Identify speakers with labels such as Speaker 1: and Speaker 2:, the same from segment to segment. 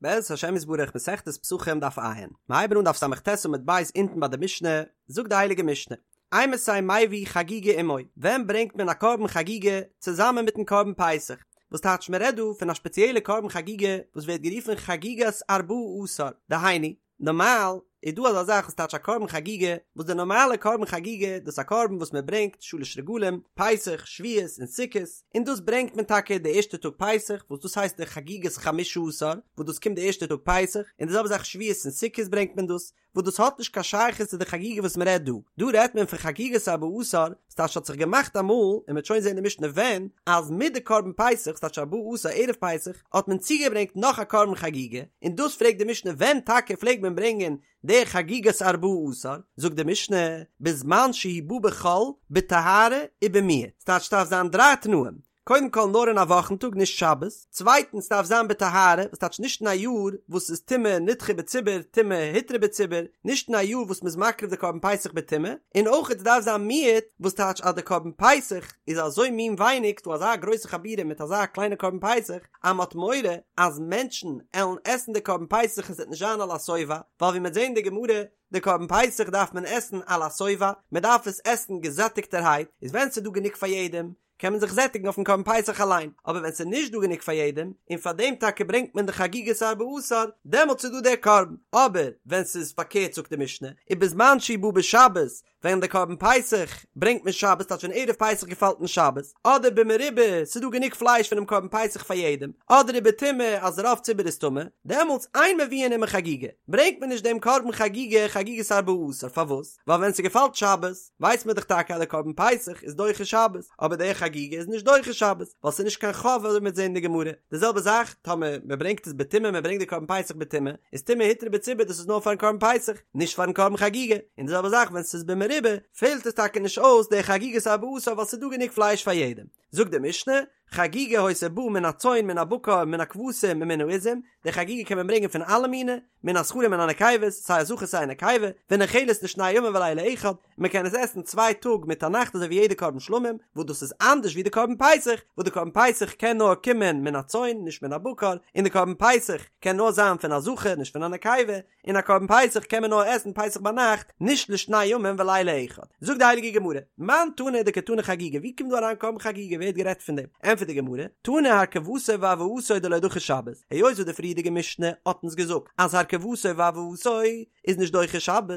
Speaker 1: בעזרת השם יתברך מסכת פסחים דף ע', מיר הייבן אן דף ס"ט עמוד ב' אונטן ביי די משנה, זאגט די הייליגע משנה, אימתי מביא חגיגה עמו, ווען ברענגט מען א קרבן חגיגה צוזאמען מיטן קרבן פסח? וואס טייטש מען רעדט דא פון א שפעציעלע קרבן חגיגה וואס ווערט גערופן חגיגת ארבעה עשר, דהיינו, נארמאל איז דא אזא זאך וואס טייטש א קרבן חגיגה, וואס די נארמאלע קרבן חגיגה דאס איז א קרבן וואס מען ברענגט שלש רגלים, פסח, שבועות און סוכות, און דאס ברענגט מען טאקע די ערשטע טאג פסח, וואס דאס הייסט די חגיגת חמשה עשר, וואס דאס קומט די ערשטע טאג פסח, און די זעלבע זאך שבועות און סוכות ברענגט מען דאס, וואס דאס האט נישט קיין שייכות צו די חגיגה וואס מען רעדט דא, דא רעדט מען פון חגיגת ארבעה עשר, וואס טייטש האט זיך געמאכט אמאל, און מען וועט שוין זען אין די משנה ווען, אז מיט די קרבן פסח, ס'טייטש ארבעה עשר ערב פסח, האט מען צוגעברענגט נאך א קרבן חגיגה, און דאס פרעגט די משנה ווען טאקע פלעגט מען ברענגען די חגיגת ארבעה עשר, זאגט די משנה, בזמן שהוא בא בחול, בטהרה ובמיעוט, ס'טייטש ס'דארף זיין דריי תנאים, קודם כל נאר אין א וואכן טאג נישט שבת, צווייטנס ס'דארף זיין בטהרה, וואס טייטש נישט אין א יאר וואס איז טומאה נדחה בציבור טומאה הותרה בציבור, נישט אין א יאר וואס מ'איז מקריב די קרבן פסח בטומאה, און אויך ס'דארף זיין מיעוט, וואס טייטש אז די קרבן פסח איז אזוי מין ווייניג, ס'דא אזא גרויסע חבורה מיט אזא קליינע קרבן פסח, אז מ'האט מורא אז מענטשן עלן עסן די קרבן פסח און ס'וועט נישט זיין על השובע, ווייל ווי מ'וועט זען אין די גמרא, די קרבן פסח דארף מען עסן על השובע, מ'דארף עס עסן געזעטיגטערהייט, איז ווען ס'איז דא גענוג פאר יעדעם, קען מען זיך זעטיגן אויפן קרבן פסח אליין, אבער ווען ס'איז נישט דא גענוג פאר יעדעם, און פאר דעם טאקע ברענגט מען די חגיגת ארבעה עשר, דעמאלטס איז דא דער קרבן, אבער ווען ס'איז פארקערט זאגט די משנה, ובזמן שהוא בא בשבת, ווען די קרבן פסח ברענגט מען שבת, טייטש ווען ערב פסח געפאלט אין שבת, אדער במרובה, ס'איז דא גענוג פלייש פונעם קרבן פסח פאר יעדעם, אדער ובטומאה אז רוב ציבור איז טמא, דעמאלטס אין מביאין עמו חגיגה, ברענגט מען נישט דעם קרבן חגיגה חגיגת ארבעה עשר, פארוואס? ווייל ווען ס'געפאלט שבת, ווייסט מען דאך טאקע אז די קרבן פסח איז דוחה שבת, אבער די חגיגה איז נישט דוחה שבת, ווייל ס'איז נישט קיין חוב אזוי מ'וועט זען אין די גמרא. די זעלבע זאך טאמער מ'ברענגט עס בטומאה, מ'ברענגט די קרבן פסח בטומאה, איז טומאה הותרה בציבור דאס איז נאר פארן קרבן פסח, נישט פארן קרבן חגיגה. און די זעלבע זאך ווען ס'איז במרובה, פעלט עס טאקע נישט אויס די חגיגת ארבעה עשר ווייל ס'איז דא גענוג פלייש פאר יעדעם. זאגט די משנה, חגיגה היתה באה מן הצאן מן הבקר מן הכבשים ומן העזים, די חגיגה קען מען ברענגען פון אלע מיני, מן הזכרים ומן הנקבות, סיי א זכר סיי א נקבה, ונאכלת לשני ימים ולילה אחד, און מען קען עס עסן צוויי טאג מיט א נאכט אזוי ווי יעדע קרבן שלמים, וואס דאס איז אנדערש ווי די קרבן פסח, וואס די קרבן פסח קען נאר קומען מן הצאן נישט מן הבקר, און די קרבן פסח קען נאר זיין פון א זכר נישט פון א נקבה, און א קרבן פסח קען מען נאר עסן פסח ביינאכט, נישט לשני ימים ולילה אחד. זאגט די הייליגע גמרא, מאן תנא דקתני חגיגה, ווי קומט דא אריין קרבן חגיגה, ווער האט גערעדט פון דעם? ענטפערט די גמרא, תנא הרכבתו והבאתו דלא דחי שבת, היות וואס די פריערדיגע משנה האט אונז געזאגט אז הרכבתו והבאתו איז נישט דוחה שבת,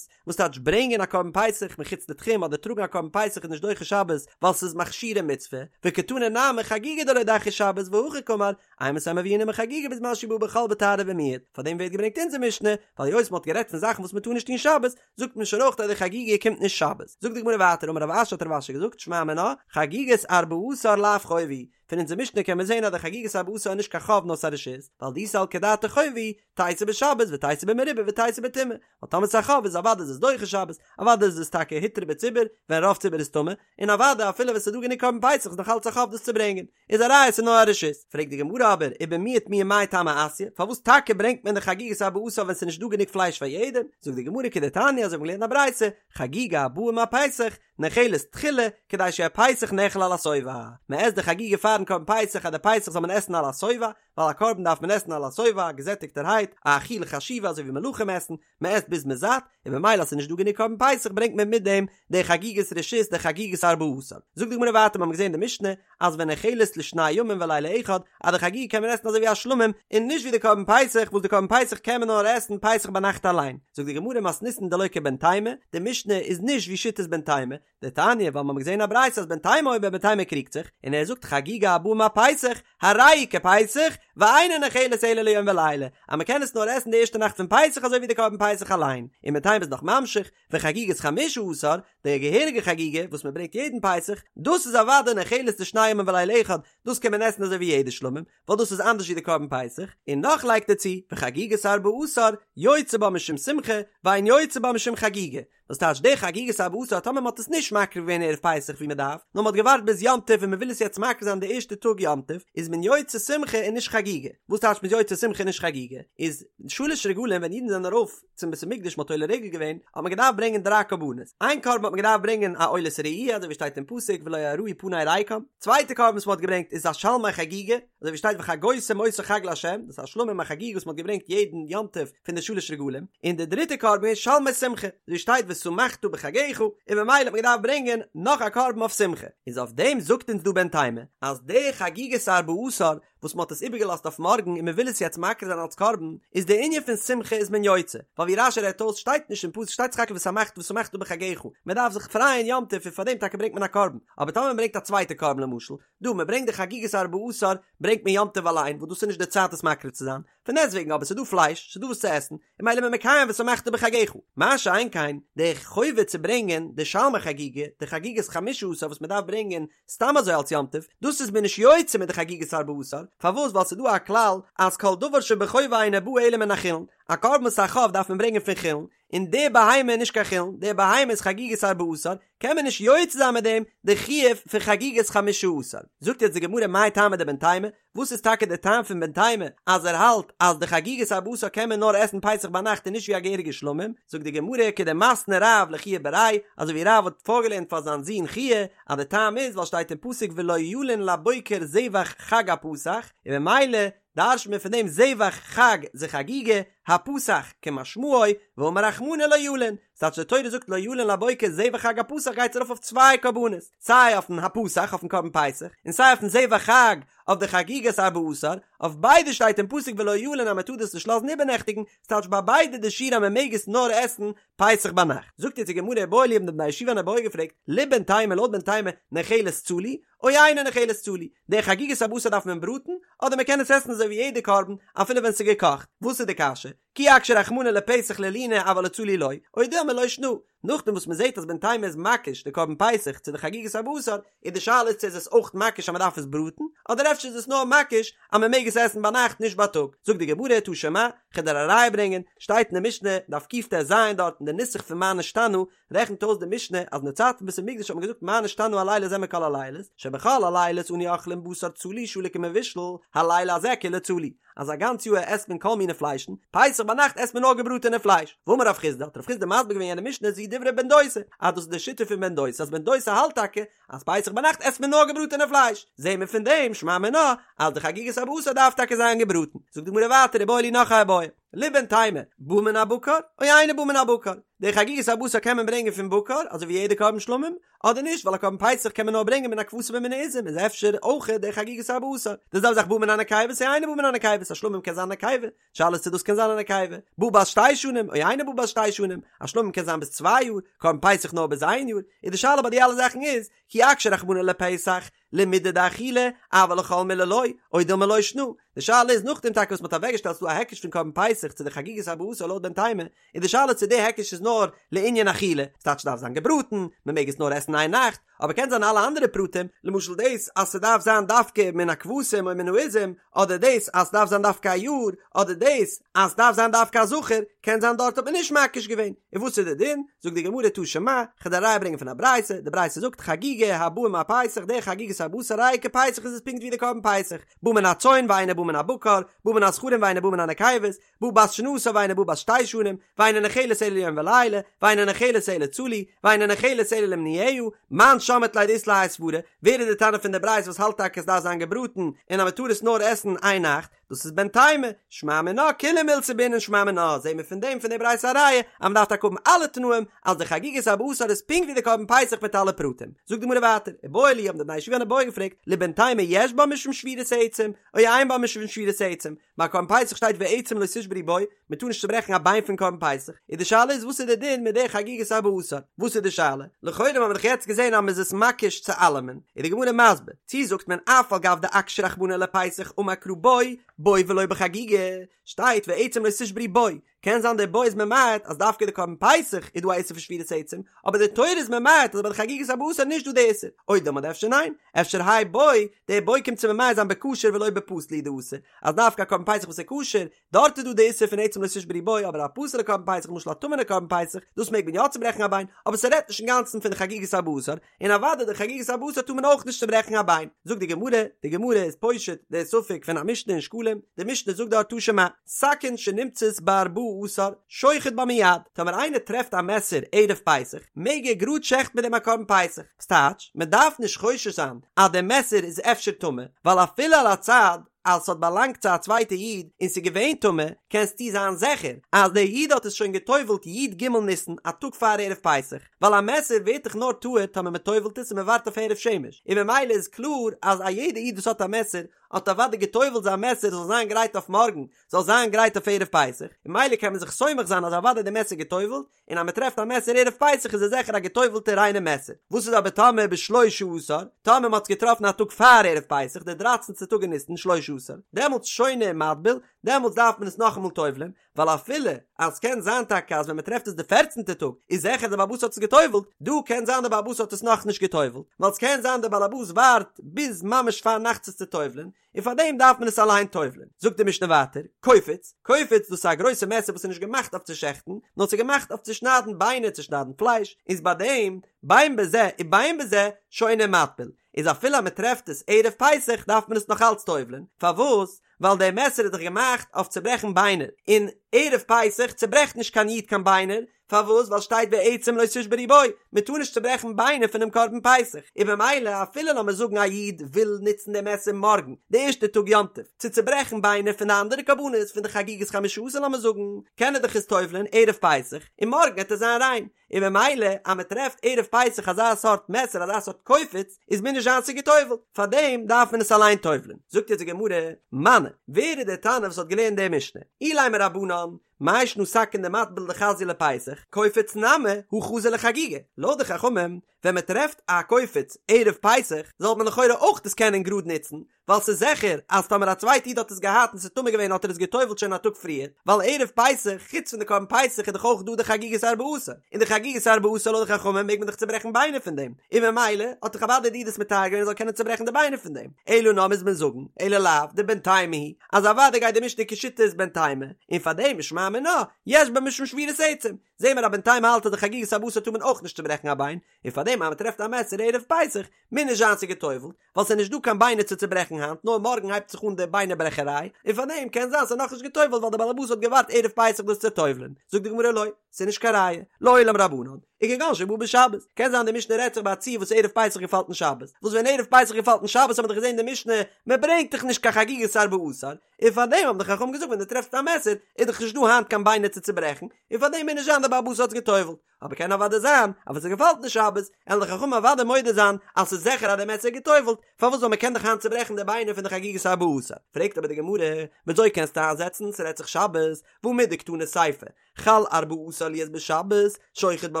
Speaker 1: וואס טייטש ברענגען א קרבן פסח מחוץ לתחום אדער טראגן א קרבן פסח איז נישט דוחה שבת ווייל ס'איז מכשירי מצוה, וקתני נמי חגיגה דלא דחיא שבת והכי קאמר, אימתי מביאין עמה חגיגה בזמן שהוא בא בחול בטהרה ובמיעוט, פאר דעם ווערט געברענגט אונזער משנה, ווייל היות מ'האט גערעדט פון זאכן וואס מ'טאר נישט טון שבת, זאגט מען שוין אויך אז די חגיגה קומט נישט שבת. זאגט די גמרא ווייטער אמר רב אשי האט רב אשי געזאגט שמע מינה, חגיגת ארבעה עשר לאו חובה היא, פון אונזער משנה קען מען זען אז די חגיגת ארבעה עשר איז נישט קיין חוב נאר ס'איז א רשות, ווייל דאי סלקא דעתך חובה היא, תיתי בשבת ותיתי במרובה ותיתי בטומאה, ווייל טאמער ס'איז א חוב איז אוודאי איז עס דוחה שבת, אוודאי איז עס טאקע הותרה בציבור ווען רוב ציבור איז טמא, און אוודאי אפילו ווען ס'איז דא גענוג קרבן פסח איז נאך אלץ א חוב דאס צו ברענגען. איז א ראיה ס'איז נאר א רשות. פרעגט די גמרא אבער ובמיעוט מיהו מאי טעמא אתיא, פארוואס טאקע ברענגט מען די חגיגת ארבעה עשר ווען ס'איז נישט דא גענוג פלייש פאר יעדעם? זאגט די גמרא כדתניא אזוי ווי מ'האט געלערנט א ברייתא, חגיגה הבאה עם הפסח, נאכלת תחילה, כדי שיהא פסח נאכל על השובע. מ'עסט די חגיגה פארן קרבן פסח אז די פסח זאל מען עסן על השובע, ווייל א קרבן דארף מען עסן על השובע, געזעטיגטערהייט, א אכילה חשובה אזוי ווי מלכים עסן, מען עסט ביז מען זאט, און במילא אז ס'איז נישט דא גענוג קרבן פסח ברענגט מען מיט דעם די חגיגת רשות די חגיגת ארבעה עשר. זאגט די גמרא ווייטער מיר האבן געזען אין די משנה אז ונאכלת לשני ימים ולילה אחד אז די חגיגה קען מען עסן אזוי ווי א שלמים און נישט ווי די קרבן פסח וואס די קרבן פסח קען מען נאר עסן פסח ביינאכט אליין. זאגט די גמרא מתניתין דלא כבן תימא, די משנה איז נישט ווי שיטת בן תימא, דתניא ווייל מ'האט געזען א ברייתא אז בן תימא אומר בן תימא קריגט זיך און ער זאגט חגיגה הבאה עם הפסח הרי היא כפסח ואינה נאכלת אלא ליום ולילה אז מ'קען עס נאר עסן די ערשטע נאכט פון פסח אזוי ווי די קרבן פסח אליין און בן תימא איז נאך ממשיך וחגיגת חמשה עשר די געהעריגע חגיגה וואס מ'ברענגט יעדן פסח דאס איז אוודאי נאכלת לשני ימים ולילה אחד דאס קען מען עסן אזוי ווי יעדע שלמים ווייל דאס איז אנדערש ווי די קרבן פסח און נאך לייגט ער צו וחגיגת ארבעה עשר יוצא בה משום שמחה ואין יוצא בה משום חגיגה וואס טייטש די חגיגת ארבעה עשר טאמער מ'האט עס נישט מקריב געווען ערב פסח ווי מ'דארף, נאר מ'האט געווארט ביז יום טוב און מ'וויל עס יעצט מקריב זיין די ערשטע טאג יום טוב, איז מען יוצא שמחה און נישט חגיגה. חגיגה. וואס טייטש מ'איז יוצא שמחה נישט חגיגה? איז שלש רגלים ווען אידן זענען ארויף צום בית המקדש מ'האט עולה רגל געווען האט מען געדארפט ברענגען דריי קרבנות, איין קרבן האט מען געדארפט ברענגען א עולת ראי' אזוי ווי שטייט אין פסוק ולא יראו פני ריקם, צווייטע קרבן וואס מ'האט געברענגט איז א שלמי חגיגה, אזוי ווי שטייט וחגותם אותו חג לה', דאס איז א שלמים א חגיגה וואס מ'האט געברענגט יעדן יום טוב פון די שלש רגלים, און די דריטע קרבן איז שלמי שמחה, אזוי ווי שטייט ושמחת בחגך, און ממילא האט מען געדארפט ברענגען נאך א קרבן אויף שמחה, איז אויף דעם זאגט אונז דא בן תימא אז די חגיגת ארבעה עשר וואס מ'האט עס איבערגעלאזט אויף מארגן און מ'וויל עס יעצט מקריב זיין אלס קרבן, איז די ענין פון שמחה איז מען יוצא, ווייל ווי רש"י רעדט אויס שטייט נישט אין פסוק שטייט סך הכל ושמחת ושמחת בחגך, מ'דארף זיך פרייען יום טוב און פאר דעם טאקע ברענגט מען א קרבן, אבער טאמער מ'ברענגט א צווייטע קרבן למשל, דא מ'ברענגט די חגיגת ארבעה עשר ברענגט מען יום טוב אליין וואס דאס איז נישט די צייט עס מקריב צו זיין, פון דעסטוועגן אבער ס'איז דא פלייש, ס'איז דא וואס צו עסן, און ממילא איז מען מקיים ושמחת בחגך. מה שאין כן, די חובה צו ברענגען די שלמי חגיגה, די חגיגת חמשה עשר וואס מ'דארף ברענגען סתם אזוי אלס יום טוב, דאס איז מען נישט יוצא מיט די חגיגת ארבעה עשר, פארוואס? ווייל ס'איז דא א כלל אז כל דבר שבחובה אינו בא אלא מן החולין, א קרבן וואס איז א חוב דארף מען ברענגען פון חולין, און די בהמה איז נישט קיין חולין, די בהמה איז חגיגת ארבעה עשר, קען מען נישט יוצא זיין מיט דעם די חיוב פון חגיגת חמשה עשר. זאגט יעצט די גמרא מאי טעמא דבן תימא, וואס איז טאקע די טעם פון בן תימא אז ער האלט אז די חגיגת ארבעה עשר קען מען נאר עסן פסח ביינאכט און נישט ווי א געהעריגע שלמים, זאגט די גמרא כדמתני רב לחייא בריה, אזוי ווי רב האט פארגעלערנט פאר זיין זון חייא אז די טעם איז ווייל שטייט אין פסוק ולא ילין לבוקר זבח חג הפסח, און ממילא דרש'נט מען פון דעם זבח חג זה חגיגה, הפסח כמשמעו, ואמר רחמנא לא ילין, ס'טייטש די תורה זאגט לא ילין לבוקר זבח חג הפסח גייט ארויף אויף צוויי קרבנות, סיי אויפן הפסח אויפן קרבן פסח, און סיי אויפן זבח חג אויף די חגיגת ארבעה עשר, אויף ביידע שטייט אין פסוק ולא ילין אז מ'טאר דאס נישט לאזן איבערנעכטיגן, ס'טייטש ביי ביידע די שיעור אז מ'מעג עס נאר עסן פסח ביינאכט. זאגט יעצט די גמרא איבעיא להו האבן די בני הישיבה אן איבעיא געפרעגט, לבן תימא לויט בן תימא נאכלת צלי, או אינה נאכלת צלי, די חגיגת ארבעה עשר דארף מען בראטן, אדער מ'קען עס עסן אזוי ווי יעדע קרבן אפילו ווען ס'איז געקאכט, וואס איז די קשיא? כי אקשה רחמנא לפסח ללינה אבל לצלי לא, או דילמא לא שנא. נאכדעם וואס מ'זעט אז בן תימא איז מקיש די קרבן פסח צו די חגיגת ארבעה עשר, איז די שאלה איז צו איז עס אויך מקיש אז מ'דארף עס בראטן, אדער אפשר איז עס נאר מקיש אז מ'מעג עס עסן ביינאכט נישט בייטאג. זאגט די גמרא תא שמע, כ'וועל דיר א ראיה ברענגען, שטייט אין די משנה, דף קט"ז דארט אין די נוסח פון מה נשתנה, רעכנט אויס די משנה אז אין די צייט פון בית המקדש האט מען געזאגט מה נשתנה הלילה הזה מכל הלילות, שבכל הלילות אנו אוכלים בשר צלי שלוק ומבושל, הלילה הזה כולו צלי, אז א גאנץ יאהר עסט מען כל מיני פליישן, פסח ביינאכט עסט מען נאר געבראטענע פלייש. ואמר רב חסדא, האט רב חסדא מסביר געווען יענע משנה זו דברי בן דוסא, אז דאס איז די שיטה פון בן דוסא, אז בן דוסא האלט טאקע אז פסח ביינאכט עסט מען נאר געבראטענע פלייש, זעהן מיר פון דעם שמע מינה אז די חגיגת ארבעה עשר דארף טאקע זיין געבראטן. זאגט די גמרא ווייטער איבעיא להו נאך א איבעיא. לבן תימא, בא מן הבקר, או אינו בא מן הבקר. די חגיגת ארבעה עשר קען מען ברענגען פון בקר, אזוי ווי יעדע קרבן שלמים, אדער נישט, ווייל א קרבן פסח קען מען נאר ברענגען מן הכבשים ומן העזים, איז אפשר אויך די חגיגת ארבעה עשר. די זעלבע זאך בא מן הנקבות או אינו בא מן הנקבות, א שלמים קען זיין א נקבה, שאלה איז צו דאס קען זיין א נקבה. בא בת שתי שנים, או אינו בא בת שתי שנים, א שלמים קען זיין ביז צוויי יאר, קרבן פסח נאר ביז איין יאר, איז די שאלה ביי די אלע זאכן איז, כי אקשה רחמנא לפסח, למידי דאכילה, אבל לכל מילי לא, או דילמא לא שנא. די שאלה איז נאכדעם טאקע וואס מ'האט אוועקגעשטעלט ס'דא א היקש פון קרבן פסח צו די חגיגת ארבעה עשר לויט בן תימא, איז די שאלה צו די היקש איז נאר לענין אכילה, ס'טייטש ס'דארף זיין געבראטן, מ'מעג עס נאר עסן איין נאכט, אבער קען זיין אלע אנדערע פרטים, למשל דאס אז ס'דארף זיין דווקא מן הכבשים או מן העזים, אדער דאס אז ס'דארף זיין דווקא א יאר, אדער דאס אז ס'דארף זיין דווקא א זכר, קען זיין דארט האט מען נישט מקיש געווען. און וואס איז די דין? זאגט די גמרא תא שמע, כ'וועל דיר א ראיה ברענגען פון א ברייתא, די ברייתא זאגט חגיגה הבאה עם הפסח, די חגיגת ארבעה עשר הרי היא כפסח איז עס פונקט ווי די קרבן פסח, בא מן הצאן ואינו בא מן הבקר, בא מן הזכרים ואינו בא מן הנקבות, בא בת שנתה ואינה באה בת שתי שנים, ואינה נאכלת אלא ליום ולילה, ואינה נאכלת אלא צלי, ואינה נאכלת אלא למנויה, מאן שמעת ליה דאית לה האי סברא, ווער איז די תנא פון די ברייתא וואס האלט טאקע עס דארף זיין געבראטן און אז מען טאר עס נאר עסן איין נאכט, דאס איז בן תימא, שמע מינה כולהו מילתא בעינן שמע מינה, זעהן מיר פון דעם פון די ברייתא א ראיה אז מען דארף טאקע האבן אלע תנאים אז די חגיגת ארבעה עשר איז פונקט ווי די קרבן פסח מיט אלע פרטים. זאגט די גמרא ווייטער, איבעיא להו האבן די בני ישיבה אן איבעיא געפרעגט, לבן תימא יש בה משום שבירת העצם, או אין בה משום שבירת העצם, ביי קרבן פסח שטייט ועצם לא תשברו בו, מען טאר נישט צוברעכן א ביין פון קרבן פסח, איז די שאלה איז וואס איז די דין מיט די חגיגת ארבעה עשר, וואס איז די שאלה? לכאורה האבן מיר דאך יעצט געזען אז מען איז עס מקיש צו אלעמען, איז די גמרא מסביר, צי זאגט מען אף על גב דאקשה רחמנא לפסח אמר קרא בו, בו ולא בחגיגה, שטייט ועצם לא תשברו בו, קען זיין די בו איז ממעט אז דווקא די קרבן פסח איז דא א איסור פון שבירת עצם, אבער די תורה איז ממעט אז ביי די חגיגת ארבעה עשר איז נישט דא די איסור, או דילמא אדער אפשר ניין, אפשר האי בו, די בו קומט צו ממעט זיין בכשר ולא בפסול הוא דאתא, אז דווקא א קרבן פסח וואס איז כשר, דארט איז דא די איסור פון עצם לא תשברו בו, אבער א פסול'ע קרבן פסח למשל א טמא'נע קרבן פסח, דאס מעג מען יא צוברעכן א ביין, אבער ס'רעדט נישט אינגאנצן פון די חגיגת ארבעה עשר, און אוודאי די חגיגת ארבעה עשר טאר מען אויך נישט צוברעכן א ביין. זאגט די גמרא, די גמרא איז פושט די ספק פון א משנה אין שקלים, די משנה זאגט דארט תא שמע, סכין שנמצאת בארבעה עשר, שוחט בה מיד, טאמער איינער טרעפט א מעסער ערב פסח, מעג ער גראד שעכטן מיט דעם א קרבן פסח, ס'טייטש, מען דארף נישט חושש זיין אז די מעסער איז אפשר טמא, ווייל אפילו על הצד אז ס'האט באלאנגט צו א צווייטע איד און ס'איז געווען טמא, קענסטו זיין זיכער אז דער איד האט עס שוין גע'טובל'ט י ג ניסן א טאג פאר ערב פסח, ווייל א מעסער ווערט דאך נאר טהור טאמער מ'טובל'ט עס און מ'ווארט אויף הערב שמש, און ממילא איז קלאר אז א יעדע איד וואס האט א מעסער האט אוודאי גע'טובל'ט זיין מעסער זאל זיין גרייט אויף מארגן, זאל זיין גרייט אויף ערב פסח, און ממילא קען מען זיך סומך זיין אז אוודאי די מעסער גע'טובל'ט, און אז מען טרעפט א מעסער ערב פסח איז עס זיכער א געטובל'טע ריינע מעסער. וואס איז אבער טאמער בשלשה עשר, טאמער מען האט עס געטראפן א טאג פאר ערב פסח, די דרייצענטע טאג אין ניסן, שלשה עשר, דעמאלטס שונה ומטביל, דעמאלטס דארף מען עס נאכאמאל טובל'ען, ווייל אפילו אז ס'קען זיין טאקע אז ווען מען טרעפט עס די פערצנטע טאג איז זיכער די בעל הבית האט עס געטובל'ט, דא קען זיין די בעל הבית האט עס נאכנישט געטובל'ט, ווייל ס'קען זיין די בעל הבית ווארט ביז ממש פארנאכטס עס צו טובל'ען, און פאר דעם דארף מען עס אליין טובל'ען. זאגט די משנה ווייטער, קופיץ, קופיץ דאס איז א גרויסע מעסער וואס איז נישט געמאכט אויף צו שעכטן, נאר ס'איז געמאכט אויף צו שניידן ביינער, צו שניידן פלייש, איז ביי דעם, בין בזה ובין בזה, שונה ומטביל, איז אפילו אז מען טרעפט עס ערב פסח דארף מען עס נאך אלץ טובל'ען, פארוואס? ווייל דער מעסער איז דאך געמאכט אויף צו ברעכן ביינער, און ערב פסח צוברעכט נישט קיין איד קיין ביינער, פארוואס? ווייל שטייט ועצם לא תשברו בו, מען טאר נישט צוברעכן ביינער פונעם קרבן פסח, און במילא אפילו לאמיר זאגן א איד וויל נוצן די מעסער מארגן, די ערשטע טאג יום טוב, צו צוברעכן ביינער פון די אנדערע קרבנות פון די חגיגת חמשה עשר לאמיר זאגן, קען ער דאך עס טובל'ען ערב פסח, און מארגן וועט עס זיין ריין, און במילא אז מען טרעפט ערב פסח אזא סארט מעסער אזא סארט קופיץ, איז מוז נישט זיין ס'איז געטובל'ט, פארדעם דארף מען עס אליין טובל'ען. זאגט יעצט די גמרא, מני, ווער איז דער תנא וואס האט געלערנט די משנה? אילימא רבנן, מאי שנא סכין דמטביל דחזיא לפסח, קופיץ נמי הא חזי לחגיגה. לויט די חכמים, ווען מען טרעפט א קופיץ ערב פסח, זאל מען לכאורה אויך דאס קענען גראד נוצן, ווייל ס'איז זיכער אז טאמער א צווייטע איד האט עס געהאט און ס'איז טמא געווען האט ער עס גע'טובל'ט שוין א טאג פריער, ווייל ערב פסח, חוץ פון די קרבן פסח איז דאך אויך דא די חגיגת ארבעה עשר, און די חגיגת ארבעה עשר לויט די חכמים מעג מען דאך צוברעכן ביינער פון דעם, און ממילא האט דאך אוודאי די איד עס מטהר געווען ער זאל קענען צוברעכן די ביינער פון דעם, אלא נאר מוז מען זאגן, אלא לאו דבן תימא היא, אז אוודאי גייט די משנה כשיטת בן תימא, און פאר דעם ושמע מינה, יש בה משום שבירת עצם, זעהן מיר אז בן תימא האלט אז די חגיגת ארבעה עשר טאר מען אויך נישט צוברעכן א ביין, און פאר דעם אז מען טרעפט א מעסער ערב פסח, מוז נישט זיין ס'איז גע'טובל'ט, ווייל ס'איז נישט דא קיין ביינער צו צוברעכן היינט, נאר מארגן הייבט זיך אן די ביינער ברעכעריי, און פאר דעם קען זיין ס'איז נאכנישט גע'טובל'ט ווייל די בעלעבאס האט געווארט ערב פסח דאס צו טובל'ען, זאגט די גמרא לא, ס'איז נישט קיין ראיה, לעולם רבנן. וכגון שבא בשבת, קען זיין די משנה רעדט זיך ביי א ציור וואס ערב פסח געפאלט אין שבת, וואס ווען ערב פסח געפאלט אין שבת האט מען דאך געזען אין די משנה, מען ברענגט דאך נישט קיין חגיגת ארבעה עשר, און פאר דעם האבן די חכמים געזאגט ווען דו טרעפסט א מעסער איז דאך נישט דא היינט קיין ביינער צו צוברעכן, און פאר דעם מוז נישט זיין די בעל הבית האט עס גע'טובל'ט, אבער קען אוודאי זיין אז ווען ס'געפאלט אין שבת, עלן די חכמים אוודאי מודה זיין אז ס'איז זיכער אז די מעסער איז גע'טובל'ט, פארוואס ווייל מען קען דאך היינט צוברעכן די ביינער פון די חגיגת ארבעה עשר, פרעגט אבער די גמרא, וויאזוי קענסטו איינזעצן ס'רעדט זיך שבת, והא מדקתני סיפא, חל ארבעה עשר להיות בשבת, שוחט בה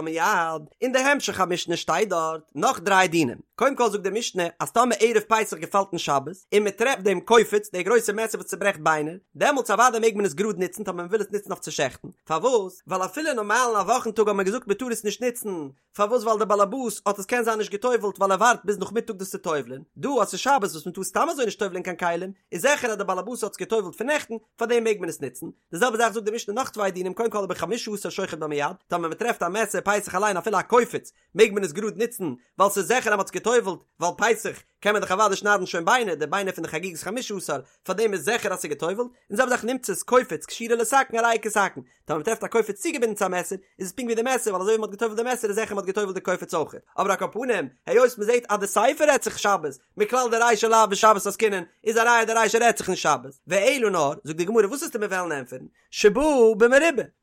Speaker 1: מיד. אין די המשך המשנה שטייט דארט נאך דריי דינים. קודם כל זאגט די משנה אז טאמער ערב פסח געפאלט אין שבת, און מען טרעפט דעם קופיץ, די גרויסע מעסער וואס צוברעכט ביינער, דעמאלטס אוודאי מעג מען עס גראד נוצן טאמער מען וויל עס נוצן אויף צו שעכטן. פארוואס? ווייל אפילו נארמאל אין א וואכן טאג האט מען געזאגט מען טאר עס נישט נוצן, פארוואס ווייל דער באלעבאס האט עס קען זיין נישט געטובלט ווייל ער ווארט ביז נאכמיטאג דאס צו טובל'ען, דא אז ס'איז שבת וואס מען טאר סתם אזוי נישט טובל'ען קיין כלים, איז זיכער אז דער באלעבאס האט עס געטובלט פון נעכטן, פארדעם מעג מען עס נוצן, די זעלבע זאך זאגט די משנה נאך צוויי דינים קודם כל ובחמשה עשר שוחט בה מיד, טאמער מען טרעפט א מעסער פסח אליין אפילו א קופיץ מעג מען עס גראד נוצן ווייל ס'איז זיכער אז מען האט עס געטובלט ווייל פסח קען מען דאך אוודאי שניידן שוין ביינער די ביינער פון די חגיגת חמשה עשר פארדעם איז זיכער אז ס'איז געטובלט, און די זעלבע זאך נמצאת קופיץ קשורה לסכין הרי היא כסכין, טאמער מ'טרעפט א קופיץ צוגעבינדן צו א מעסער, איז עס פונקט ווי די מעסער, ווייל אזוי ווי מ'האט געטובלט די מעסער איז זיכער מ'האט געטובלט די קופיץ אויכעט. אבער על כל פנים, היות מ'זעט אז די סיפא רעדט זיך שבת, מכלל דרישא לאו בשבת עסקינן, איז א ראיה די רישא רעדט זיך אין שבת. ואלא נאר, זאגט די גמרא, וואס וועסטו מיר וועלן ענטפערן? שבא במרובה,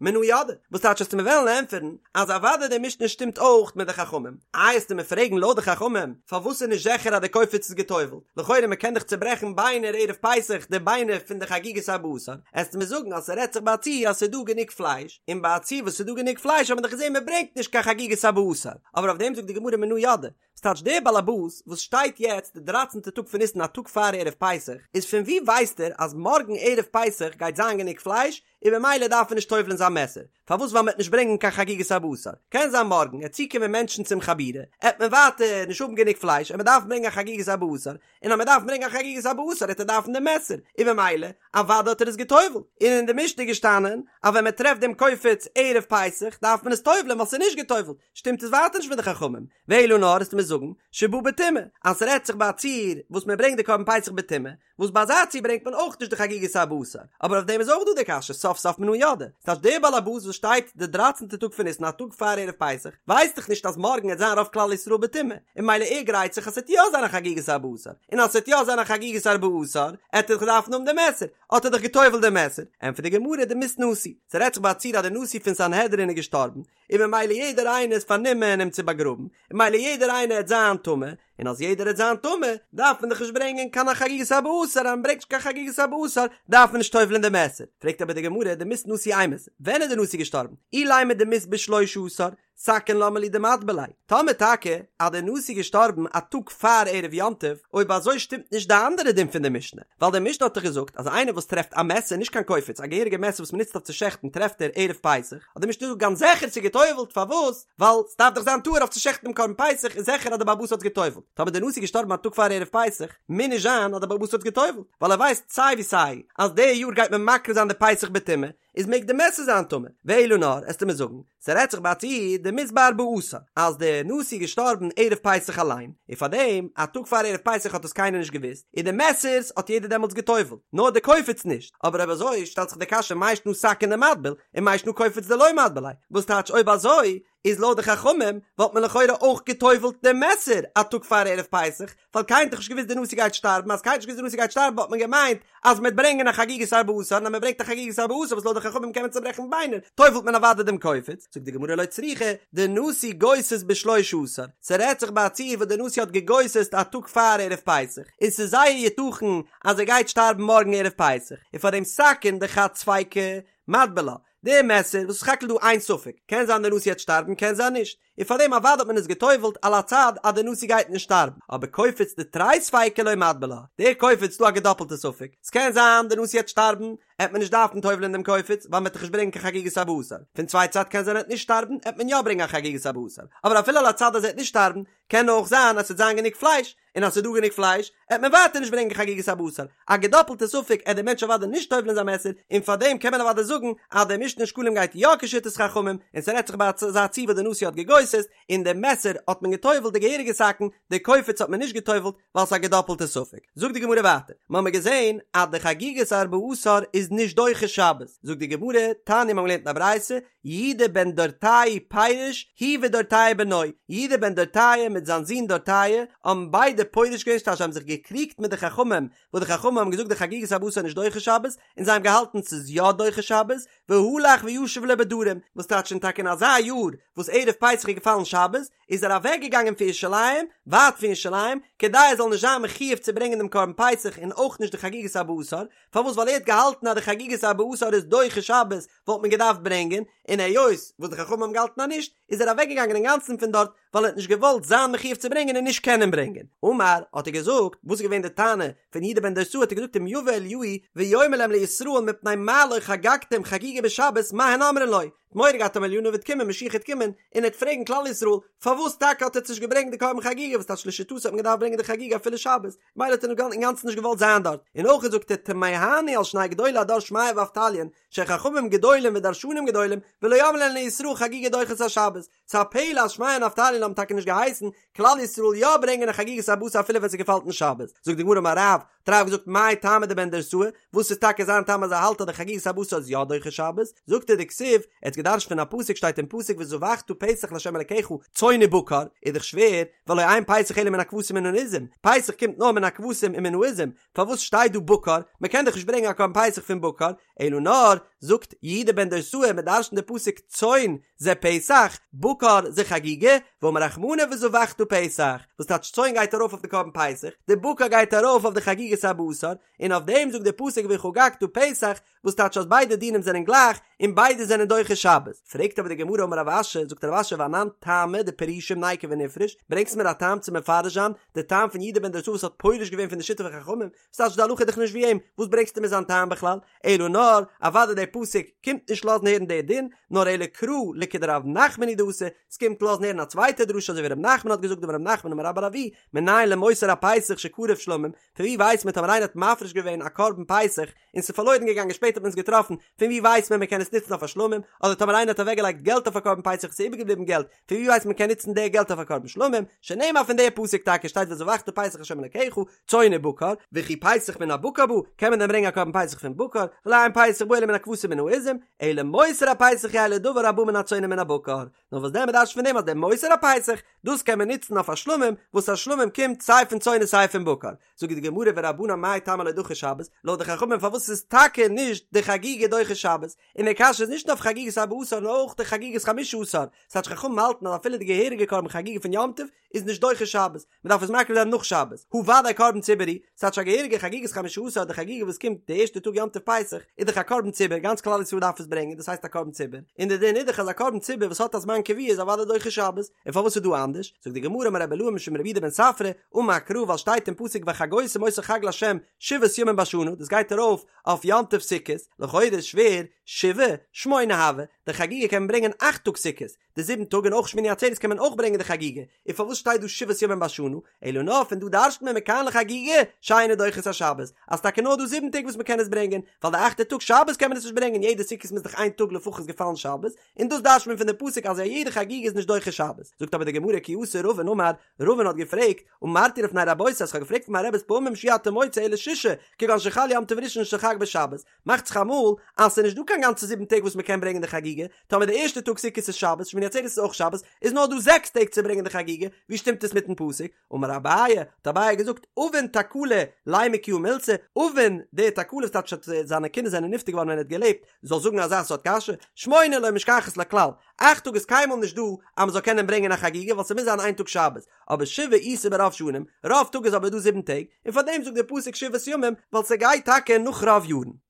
Speaker 1: מנא ידעי. וואס טייטש וועסטו מיר וועלן ענטפערן, אז אוודאי די משנה שטימט אויך מיט די חכמים. איי וועסטו מיר פרעגן לויט די חכמים, פארוואס איז נישט זיכער אז די קופיץ איז געטובלט? לכאורה מ'קען דאך צוברעכן ביינער ערב פסח, די ביינער. פון די חגיגת ארבעה עשר, עסטו מיר זאגן אז ס'רעדט זיך ביי א ציור אז ס'איז דא גענוג פלייש, און ביי א ציור וואס ס'איז דא גענוג פלייש האט מען דאך געזען מ'ברענגט נישט קיין חגיגת ארבעה עשר, אבער אויף דעם זאגט די גמרא מנא ידעי, ס'טייטש דער באלעבאס וואס שטייט יעצט די דרייצענטע טאג פון ניסן א טאג פאר ערב פסח, איז פון וואו ווייסט ער אז מארגן ערב פסח גייט זיין גענוג פלייש, און ממילא דארף ער נישט טובל'ן זיין מעסער, פארוואס ווייל מ'עט נישט ברענגען קיין חגיגת ארבעה עשר, קען זיין מארגן עט צוקומען מענטשן צום חבורה, עט מען ווייטער נישט האבן גענוג פלייש און מ'דארף ברענגען א חגיגת ארבעה עשר, און אז מ'דארף ברענגען א חגיגת ארבעה עשר עט ער דארפן דעם מעסער, און ממילא אוודאי האט ער עס געטובל'ט, און אין די משנה איז געשטאנען אז ווען מ'טרעפט דעם קופץ ערב פסח דארף מען עס טובל'ן ווייל ס'איז נישט געטובל'ט, שטימט עס ווייטער נישט מיט די חכמים, ואלא נאר עסטו מיר זאגן שבא בטומאה, אז ס'רעדט זיך ביי א ציור וואס מ'ברענגט די קרבן פסח בטומאה, וואס ביי אזא ציור ברענגט מען אויך נישט די חגיגת ארבעה עשר, אבער אויף דעם איז אויך דא די קשיא סוף סוף מנא ידעי, ס'טייטש דער בעל הבית וואס שטייט די דרייצענטע טאג פון ניסן א טאג פאר ערב פסח, ווייסט דאך נישט אז מארגן עט זיין רוב כלל ישראל בטומאה, און ממילא ער גרייט זיך אז ס'עט יא זיין א חגיגת ארבעה עשר, און אז ס'עט יא זיין א חגיגת ארבעה עשר, עט ער דאך דארפן האבן די מעסער, האט ער דאך גע'טובל'ט די מעסער, ענטפערט די גמרא דמית נשיא, ס'רעדט זיך ביי א ציור אז די נשיא פון סנהדרין איז געשטארבן, און ממילא יעדער איינער איז פארנומען אים צו באגראבן, און ממילא יעדער איינער עט זיין טמא, און אז יעדער עט זיין טמא, דארף מען דאך נישט ברענגען קיין חגיגת ארבעה עשר, אז מען ברענגט נישט קיין חגיגת ארבעה עשר, דארף מען נישט טובל'ען די מעסער. פרעגט אבער די גמרא, דמית נשיא אימת, ווען איז די נשיא געשטארבן? אילימא דמית בשלשה עשר, סכין למה לי דמטביל ליה. טאמער טאקע אז די נשיא איז געשטארבן א טאג פאר ערב יום טוב, אויב אזוי שטימט נישט די אנדערע דין פון די משנה, ווייל די משנה האט דאך געזאגט אז איינער וואס טרעפט א מעסער, נישט קיין קופץ, א געהעריגע מעסער וואס מען נוצט אויף צו שעכטן טרעפט ער ערב פסח, האט די משנה געזאגט גאנץ זיכער ס'איז גע'טובל'ט, פארוואס? ווייל ס'דארף דאך זיין טהור אויף צו שעכטן דעם קרבן פסח, איז זיכער אז דער בעל הבית האט עס גע'טובל'ט. טאמער דער נשיא איז געשטארבן א טאג פאר ערב פסח, מוז נישט זיין אז דער בעל הבית האט עס גע'טובל'ט, ווייל ער ווייסט סיי ווי סיי אז די יאר גייט מען מקריב זיין די פסח בטומאה, איז מעג די מעסער זיין טמא. ואלא נאר, עסטו מיר זאגן, ס'רעדט זיך ביי א ציור דמית בארבעה עשר, אז דער נשיא איז געשטארבן ערב פסח אליין, און פארדעם א טאג פאר ערב פסח האט עס קיינער נישט געוואוסט, און די מעסערס האט יעדער דעמאלטס גע'טובל'ט, נאר די קופץ נישט, אבער אויב אזוי שטעלט זיך די קשיא מאי שנא סכין דמטביל, ומאי שנא קופץ דלא מטביל ליה, וואס טייטש אויב אזוי איז לויט די חכמים וואלט מען לכאורה אויך גע'טובל'ט דעם מעסער א טאג פאר ערב פסח, ווייל קיינער האט דאך נישט געוואוסט די נשיא גייט שטארבן, אז קיינער האט נישט געוואוסט די נשיא גייט שטארבן וואלט מען געמיינט אז מ'וועט ברענגען א חגיגת ארבעה עשר, און אז מ'ברענגט א חגיגת ארבעה עשר וואס לויט די חכמים קען מען צוברעכן ביינער, טובל'ט מען אוודאי דעם קופץ, זאגט די גמרא לא צריכא, דנשיא גוסס בשלשה עשר, ס'רעדט זיך ביי א ציור וואס די נשיא האט גע'גוסס'ט א טאג פאר ערב פסח, און ס'איז זייער יתכן אז ער גייט שטארבן מארגן ערב פסח, און פאר דעם סכין דחד ספיקא מטביל לה, די מעסער וואס איז סך הכל דא איין ספק, קען זיין די נשיא העט שטארבן קען זיין נישט, און פאר דעם אוודאי האט מען עס גע'טובל'ט על הצד אז די נשיא גייט נישט שטארבן, אבער קופץ דתרי ספיקי לא מטביל לה, די קופץ איז דא א געדאפלטע ספק, ס'קען זיין די נשיא העט שטארבן, העט מען נישט דארפן טובל'ען דעם קופץ ווייל מ'עט דאך נישט ברענגען קיין חגיגת ארבעה עשר, פון צווייטע צד קען זיין ער העט נישט שטארבן העט מען יא ברענגען א חגיגת ארבעה עשר, אבער אפילו על הצד אז ער העט נישט שטארבן, קען אויך זיין אז ס'וועט זיין גענוג פלייש, און אז ס'איז דא גענוג פלייש, עט מען ווייטער נישט ברענגען חגיגת ארבעה עשר. א געדאפלטע ספק עט דער מענטש אוודאי נישט טובל'ען זיין מעסער, און פארדעם קען מען אוודאי זאגן אז דער משנה אין שקלים גייט יא כשיטת חכמים, און ס'רעדט זיך ביי אזא ציור וואס דער נשיא האט געגוסס'ט, און דער מעסער האט מען געטובל'ט די געהעריגע סכין, די קופץ האט מען נישט געטובל'ט, ווייל ס'איז א געדאפלטע ספק. זאגט די גמרא ווייטער, מ'האמיר געזען אז די חגיגת ארבעה עשר איז נישט דוחה שבת, זאגט די גמרא, תניא מ'האמיר געלערנט אין א ברייתא, יהודה בן דורתאי פירש, הוא ודורתאי בנו, יהודה בן דורתאי מיט זיין זון דורתאי האבן ביידע פורש געווען ס'טייטש זיי האבן זיך געקריגט מיט די חכמים, וואס די חכמים האבן געזאגט די חגיגת ארבעה עשר איז נישט דוחה שבת, און זיי האבן געהאלטן ס'איז יא דוחה שבת, והלך וישב לו בדרום, וואס טייטש און טאקע אין אזא יאר וואס ערב פסח איז געפאלן שבת, איז ער אוועק געגאנגען פון ירושלים, ווייט פון ירושלים, כדי ער זאל נישט זיין מחויב צו ברענגען דעם קרבן פסח און אויך נישט די חגיגת ארבעה עשר, פארוואס ווייל ער האט געהאלטן אז די חגיגת ארבעה עשר איז דוחה שבת וואלט מען געדארפט ברענגען, און היות וואס די חכמים האבן געהאלטן אז נישט, איז ער אוועק געגאנגען אינגאנצן פון דארט, ווייל ער האט נישט געוואלט זיין מחויב צו ברענגען און נישט קענען ברענגען. אמר, האט ער געזאגט, וואס איז געווען די טענה פון יהודה בן דורתאי, האט ער געזאגט אם יבא אליהו ויאמר להם לישראל מפני מה לא חגגתם חגיגה בשבת מה הן אומרים לו, מורא געהאט אז אליהו הנביא וועט קומען משיח וועט קומען און ער וועט פרעגן כלל ישראל פארוואס טאקע האט עטץ נישט געברענגט די קרבן חגיגה וואס טייטש לשיטתו האט מען געדארפט ברענגען די חגיגה אפילו שבת מילא האט ער אינגאנצן נישט געוואלט זיין דארט און אויך זאגט ער תמהני על שני גדולי הדור שמעיה ואבטליון שחכמים גדולים ודרשנים גדולים ולא אמרו להן לישראל חגיגה דוחה את השבת ס'איז א פלא אז שמעיה און אבטליון האבן טאקע נישט געהייסן כלל ישראל יא ברענגען א חגיגת ארבעה עשר אפילו ווען ס'געפאלט אין שבת. זאגט די גמרא אמר רב, האט רב געזאגט מאי טעמא דבן דורתאי, וואס איז טאקע זיין טעם אז ער האלט אז די חגיגת ארבעה עשר איז יא דוחה שבת? זאגט ער דכתיב, ער האט געדרש'ט פון א פסוק שטייט אין פסוק וזבחת פסח לה' אלקיך צאן ובקר, איז דאך שווער, והלא אין פסח אלא מן הכבשים ומן העזים, פסח קומט נאר מן הכבשים און מן העזים, פארוואס שטייט דא בקר? מ'קען דאך נישט ברענגען א קרבן פסח פון בקר, אלא נאר, זאגט יהודה. יהודה בן דורסאי, מען דרש'נט די פסוק צאן זה פסח, בקר זה חגיגה, ואמר רחמנא וזבחת פסח, וואס טייטש צאן גייט ארויף אויף די קרבן פסח, די בקר גייט ארויף אויף די חגיגת ארבעה עשר, און אויף דעם זאגט די פסוק וחגגת פסח, וואס טייטש אז ביידע דינים זענען גלייך און ביידע זענען דוחה שבת? פרעגט אבער די גמרא אמר רב אשי, זאגט רב אשי ואנן טעמא דפרושים ניקו ונפרוש, ברענגסט מיר א טעם צו מפרש זיין די טעם פון יהודה בן דורסאי וואס האט פורש געווען פון די שיטה פון חכמים, וואס טייטש די הלכה איז דאך נישט ווי אים, וואס ברענגסטו מיר זיין טעם בכלל? אלא נאר, אוודאי דער פסוק קומט נישט לאזן הערן די דין, נאר אלא קרא לכדרב נחמן הוא דאתא, ס'קומט לאזן הערן א צווייטע דרשה אזוי ווי רב נחמן האט געזאגט דאמר רב נחמן אמר רבה בר אבוה, מנין למותר הפסח שקרב שלמים, פון ווי ווייסט מען טאמער איינער האט מפריש געווען א קרבן פסח און ס'איז פארלוירן געגאנגען שפעטער האט מען עס געטראפן, פון ווי ווייסט מען מ'קען עס נוצן אויף א שלמים, אדער טאמער איינער האט אוועקגעלייגט געלט אויף א קרבן פסח און ס'איז איבערגעבליבן געלט, פון ווי ווייסט מען מ'קען נוצן די געלט אויף א קרבן שלמים, שנאמר פון די פסוק טאקע שטייט וזבחת פסח לה' אלקיך, צאן ובקר, וכי פסח מן הבקר בא, קען מען דען ברענגען א קרבן פסח פון בקר, והלא אין פסח בא אלא מן הכבשים ומן העזים, אלא מותר הפסח יהא לדבר הבא מן הצאן ומן הבקר, נאר וואס דען מ'דרש'נט פון דעם אז דער מותר הפסח, דאס קען מען נוצן אויף א שלמים, וואס א שלמים קומט סיי פון צאן און סיי פון בקר. זאגט די גמרא ורבנן מאי טעמא לא דחו שבת, לויט די חכמים פארוואס איז טאקע נישט די חגיגה דוחה שבת, און די קשיא איז נישט נאר אויף חגיגת ארבעה עשר נאר אויך די חגיגת חמשה עשר, ס'טייטש חכמים האלטן אז אפילו די געהעריגע קרבן חגיגה פון יום טוב איז נישט דוחה שבת, מען דארף עס מקריב זיין נאך שבת, הא ודאי קרבן ציבור הוא, ס'טייטש א געהעריגע חגיגת חמשה עשר די חגיגה וואס קומט די ערשטע טאג יום טוב פסח איז דאך א קרבן ציבור גאנץ כלל ישראל דארף עס ברענגען דאס הייסט א קרבן ציבור, און די דין איז דאך אז א קרבן ציבור וואס האט א זמן קבוע איז אוודאי דוחה שבת, און פארוואס איז דא אנדערש? זאגט די גמרא אמר רבי אילעא משום רבי יהודה בן ספרא, אמר קרא ווייל שטייט אין פסוק וחגותם אותו חג לה' שבעת ימים בשנה דאס גייט ארויף אויף יום טוב סוכות, לכאורה איז שווער, שבעה, שמונה הוה, די חגיגה קען מען ברענגען אכט טאג סוכות, די זיבן טאג און אויך שמיני עצרת קען מען אויך ברענגען די חגיגה, און פארוואס שטייט דא שבעת ימים בשנה, אלא נאר פון דא דרש'נט מען מכאן לחגיגה שאינה דוחה את השבת, אז טאקע נאר דא זיבן טעג וואס מען קען עס ברענגען, ווייל די אכטע טאג שבת קען מען עס נישט ברענגען, יעדע סוכות מוז דאך איין טאג לפחות געפאלן שבת, און דאס דרש'נט מען פון די פסוק אז א יעדע חגיגה איז נישט דוחה שבת, זאגט אבער די גמרא כי אתא רבין אמר, רבין האט געפרעגט, אמרתי לפני רבותי אז כ'האב געפרעגט פון מיין רעבעס פעמים שאי אתה מוצא אלא ששה, כגון שחל יום טוב ראשון של חג בשבת, מאכט זיך אמאל אז ס'איז נישט דא קיין גאנצע זיבן טעג וואס מ'קען ברענגען די חגיגה, טאמער די ערשטע טאג סוכות איז שבת, שמיני עצרת איז אויך שבת, איז נאר דא זעקס טעג צו ברענגען די חגיגה, ווי שטימט עס מיטן פסוק? אמר אביי, האט אביי געזאגט, אבין תקלה לימא כי הא מילתא, אבין די תקלה ס'טייטש אז זיינע קינדער זענען נפטר געווארן ווען ער האט געלעבט, זאל זאגן אזא סארט קשיא, שמונה לא משכחת לה כלל, אכט טאג איז קיינמאל נישט דא אז מ'זאל קענען ברענגען א חגיגה ווייל ס'מוז זיין איין טאג שבת, אבער שבעה איתא ברוב שנים, רוב טאג איז אבער דא זיבן טעג, און פארדעם זאגט דער פסוק שבעת ימים, ווייל ס'גייט טאקע נאך רוב יארן.